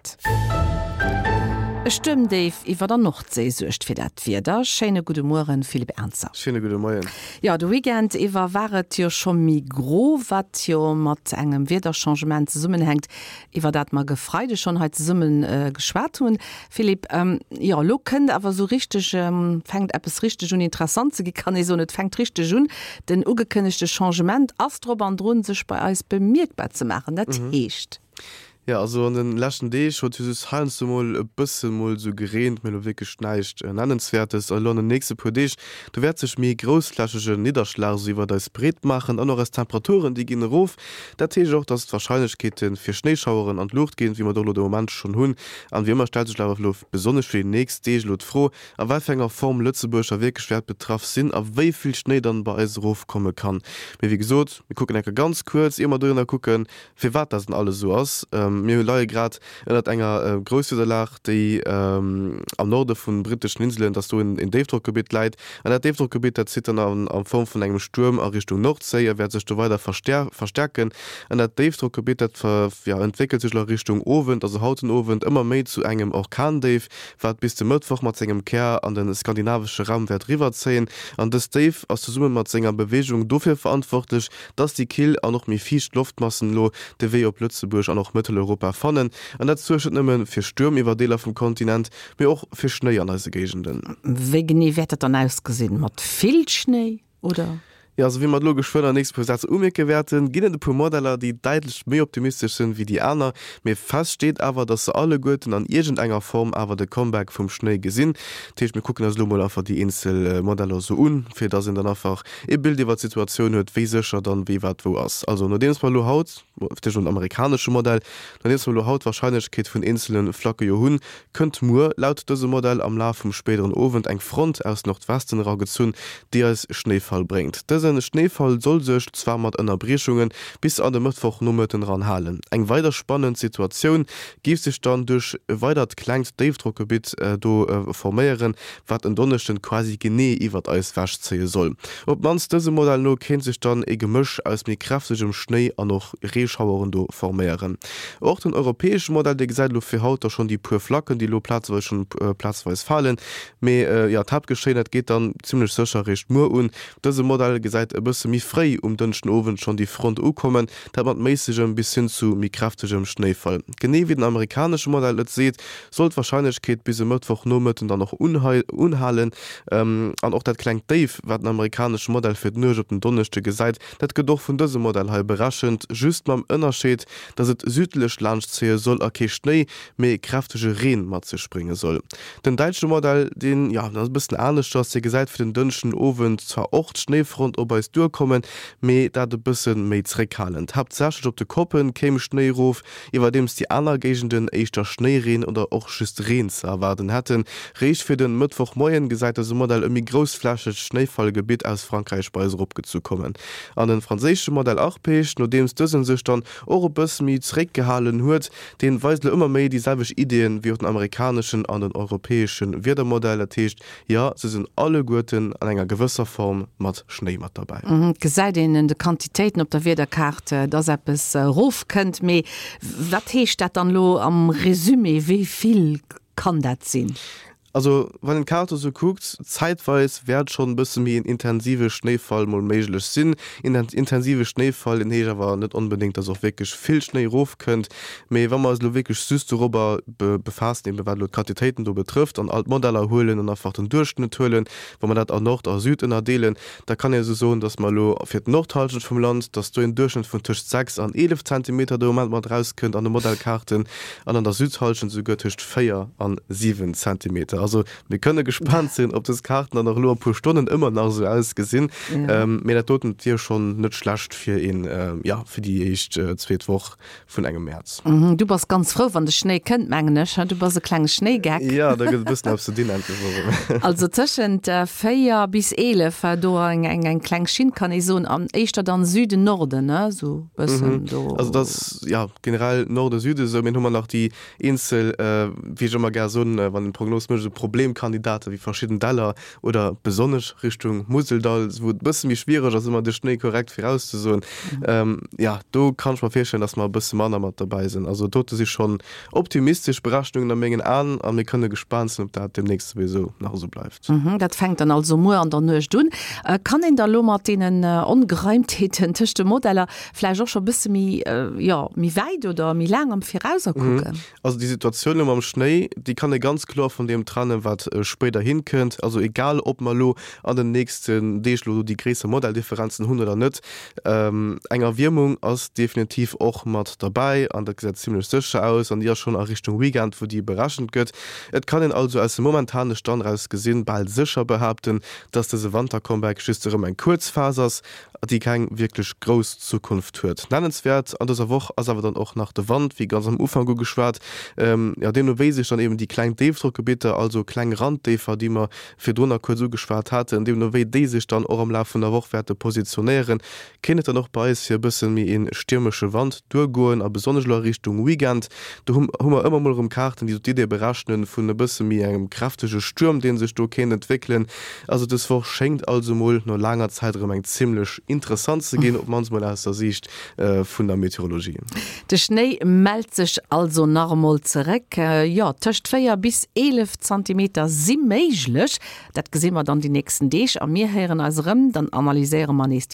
Grad. E Stuermdéif iwwer der Nordséi suergt fir dat Wieder. Schéine gudde Mueren, Philippe Ernzer. Schéine gudde Moien. Jo, de Weekend iwwer war et jo scho méi gro, wat jo mat engem Wiederchangement zesummenhänkt, iwwer dat mer ge Freide schonn hei zesumme geschwat hunn. Philippe, jo, elo kënnt awer esou richteg, fänkt eppes richteg un interessant ze gi, kann ee soen. Et fänkt richteg un. Den ugekënnegte Changement ass drop an drun, sech bei eis bemierkbar ze maachen. Dat heescht. Jo, also an den leschten Deeg huet jo just heiansdo mol e bësse mol sou gereent, mee elo wierklech näischt Nennenswäertes. An elo an den nächste puer Deeg, do wäert sech méi groussflächege Nidderschlag sou iwwert eis breet maachen an och eis Temperaturen, déi ginn erof. Dat heescht och, dass d'Warscheinlechkeete fir Schnéischaueren an d'Luucht ginn, wéi mer et och elo de Moment schonn hunn. An wéi ëmmer stellt sech awer elo besonnesch fir déi nächst Deeg elo d'Fro, a wat fir enger Form Lëtzebuerg da wierklech wäert betraff sinn a wéi vill Schnéi dann bei eis erofkomme kann. Mee wéi gesot, mir kucken enker ganz kuerz, ier mer dohinner kucken, Firwat dat dann alles esou ass? Mir leie grad ënnert enger Grousswiederlag, déi am Norde vun britteschen Inselen, dass do en Déifdrockgebitt läit. An dat Déifdrockgebitt, dat zitt dann a Form vun engem Stuerm a Richtung Nordséi a wäert sech do weider verstäerken. An dat Déifdrockgebitt, dat entwéckelt sech elo a Richtung Owend, also haut den Owend, ëmmer méi zu engem Orkandéif, wat bis de Mëttwoch mat sengem Kär an de skandinavesche Raum wäert eriwwerzéien. An dëst Déif ass zesumme mat senger Beweegung dofir verantwortlech, dass déi kill an och méi fiicht Loftmassen elo de Wee op Lëtzebuerg an och Mëtteleuropa fannen. An dat suergt net nëmme fir Stuerm iwwer Deeler vum Kontinent, mee och fir Schnéi an eise Géigenden. Wéi genee wäert dat dann ausgesinn? Mat vill Schnéi oder? Jo, also wéi mer et elo geschwënn an nächste puer Sätz umierke wäerten, ginn et e puer Modeller, déi däitlech méi optimistesch sinn wéi déi aner. Mee fest steet awer, dass se alleguerten an iergendenger Form awer de Comeback vum Schnéi gesinn. Dat heescht, mir kucken eis elo mol einfach déi eenzel Modeller esou un, fir dass een dann einfach ee Bild iwwer d'Situatioun huet, wéi sécher dann wéi wat wou ass. Also nodeems mer elo haut, fir d'éischt den amerikanesche Modell, nodeems mer elo haut d'Warscheinlechkeet vun eenzele Flacke jo hunn, kënnt muer laut dësem Modell am Laf vum spéideren Owend eng Front aus Nordwesten eragezunn, déi eis Schnéifall bréngt. Dëse Schnéifall soll sech, zwar mat Ënnerbriechungen, bis an de Mëttwochnomëtten eran halen. Eng weider spannend Situatioun géif sech dann duerch e weidert klengt Déifdrockgebitt do forméieren, wat en Donneschden quasi genee iwwert eis wech zéie soll. Op d'mannst dësem Modell no kéint sech dann e Gemësch aus méi kräftegem Schnéi an och Reeschaueren do forméieren. Och den europäesche Modell, dee gesäit elo fir haut da schonn déi puer Flacken, déi elo plazeweis schonn plazeweis falen. Mee jo, d'Haaptgeschéien, dat geet dann zimmlech sécher eréischt muer un. Dëse Modell gesäit e bësse méi fréi um Dënschdenowend schonn déi Front ukommen, dat mat méissegem bis hin zu méi kräftegem Schnéifall. Genee wéi den amerikanesche Modell et seet, soll d'Warscheinlechkeet bis e Mëttwochnomëtten dann och unhalen. An och dat klengt Déif, wat den amerikanesche Modell fir d'Nuecht op den Donneschde gesäit, dat gëtt och vun dësem Modell hei berechent, just mam Ënnerscheed, dass et südlech laanschtzéie soll a kee Schnéi, mee kräftege Reen mat sech brénge soll. Den däitsche Modell, deen, jo, ass e bëssen aneschters, dee gesäit fir den Dënschdenowend zwar och d'Schnéifront op eis duerkommen, mee dat e bësse méi zréckhalend. Haaptsächlech op de Koppe kéim Schnéi erof, iwwerdeems déi aner Géigenden éischter Schnéireen oder och just Reen ze erwaarden hätten. Réischt fir den Mëttwochmoien gesäit dëse Modell e méi groussflächegt Schnéifallgebitt aus Frankräich bei eis eropgezu kommen. An den franséische Modell Arpege, nodeems dësen sech dann och e bësse méi zeréckgehalen huet, deen weist elo ëmmer méi déi selwecht Ideeën wéi och den amerikaneschen an den europäesche Wiedermodell. Dat heescht, Jo, se sinn alleguerten an enger gewësser Form mat Schnéi mat derbäi. Et gesäit een un de Quantitéiten op der Wiederkaart, dass eppes erofkënnt. Mee wat heescht dat dann elo am Resumé? Wéi vill kann dat sinn? Also wann een d'Kaart esou kuckt, zäitweis wäert schonn e bësse méi en intensive Schnéifall mol méiglech sinn. Intensive Schnéifall, deen heescht awer net onbedéngt, dass och wierklech vill Schnéi erofkënnt. Mee wa mer eis elo wierklech just dorobber befaassen, eben wat elo d'Quantitéiten do betrëfft, an all d'Modeller huelen an einfach den Duerchschnëtt huelen, wa mer dat a Nord a Süd ënnerdeelen, da kann ee esou soen, dass mer elo fir d'Nordhallschent vum Land, dass do een Duerchschnëtt vun tëscht 6 an 11 Zentimeter de Moment mat erauskënnt an de Modellkaarten, an an der Südhallschent esouguer tëscht 4 an 7 Zentimeter. Also mir kënne gespaant sinn, ob dës Kaarten dann och elo a puer Stonnen ëmmer nach esou ausgesinn. Mee dat doten wier schonn net schlecht fir een, jo, fir déi éischt zweet Woch vun engem Mäerz. Du bass ganz frou, wann de Schnéi kënnt, mengen ech. Du bass e klenge Schnéigeck. Jo, da gëtt e bëssen eppes ze dinn endlech erëm. Also tëschent 4 bis 11 do eng eng kleng Schinn, kann ee soen, an éischter dann Süden, Norden, ne, esou bëssen do. Also dat ass, jo, generell Norden, Süden esou. Mee dann hu mer nach déi eenzel, wéi ech ëmmer gär soen, wann een d'Prognos mécht, esou. Problemkandidate wéi verschidden Däller oder besonnesch Richtung Museldall, wou et e bësse méi schwiereg ass, ëmmer de Schnéi korrekt virauszesoen. Jo, do kann ech mer virstellen, dass mer e bësse manner mat derbäi sinn. Also dote si schonn optimistesch Berechnungen a mengen Aen a mir kënne gespaant sinn, ob dat deemnächst souwisou nach esou bleift. Dat fänkt dann also muer an der Nuecht un. Kann een da lo mat deenen Ongereimtheeten tëscht de Modeller vläicht och scho bësse méi, jo, méi wäit oder méi laang am Virauser kucken? Also déi Situatioun elo mam Schnéi, déi kann ee ganz kloer vun deem trennen, wat spéiderhin kënnt. Also egal, ob mer elo an den nächsten Deeg elo déi gréisser Modelldifferenzen hunn oder net, eng Erwiermung ass definitiv och mat derbäi an dat gesäit zimmlech sécher aus an déi ass schonn a Richtung Weekend, wou déi berechent gëtt. Et kann een also aus dem momentane Stand eraus gesinn bal sécher behaapten, dass dëse Wantercomeback just erëm eng kuerz Phas ass déi keng wierklech grouss Zukunft huet. Nennenswäert an dëser Woch ass awer dann och nach de Wand, wéi ganz am Ufank ugeschwat. Jo, deemno wéi sech dann eben déi kleng Déifdrockgebitter, also kleng Randdéifer, déi mer virdrunner kuerz ugeschwat haten, deemno wéi déi sech dann och am Laf vun der Woch wäerte positionéieren, kéint et dann och bei eis fir e bësse méi ee stiermesche Wand duergoen a besonnesch elo a Richtung Weekend. Do hu hu mer ëmmer mol erëm Kaarten, déi sou d'Idee berechnen vun e bësse méi engem kräftege Stuerm, dee sech do kéint entwéckelen. Also dës Woch schéngt also mol no laanger Zäit erëm eng zimmlech interessant ze ginn, op mannst mol aus der Siicht vun der Meteorologie. De Schnéi mellt sech also nach emol zeréck. Jo, tëscht 4 bis 11 Zantimeter si méiglech. Dat gesi mer dann déi nächsten Deeg a mir héieren eis erëm, dann analyséiere mer nees.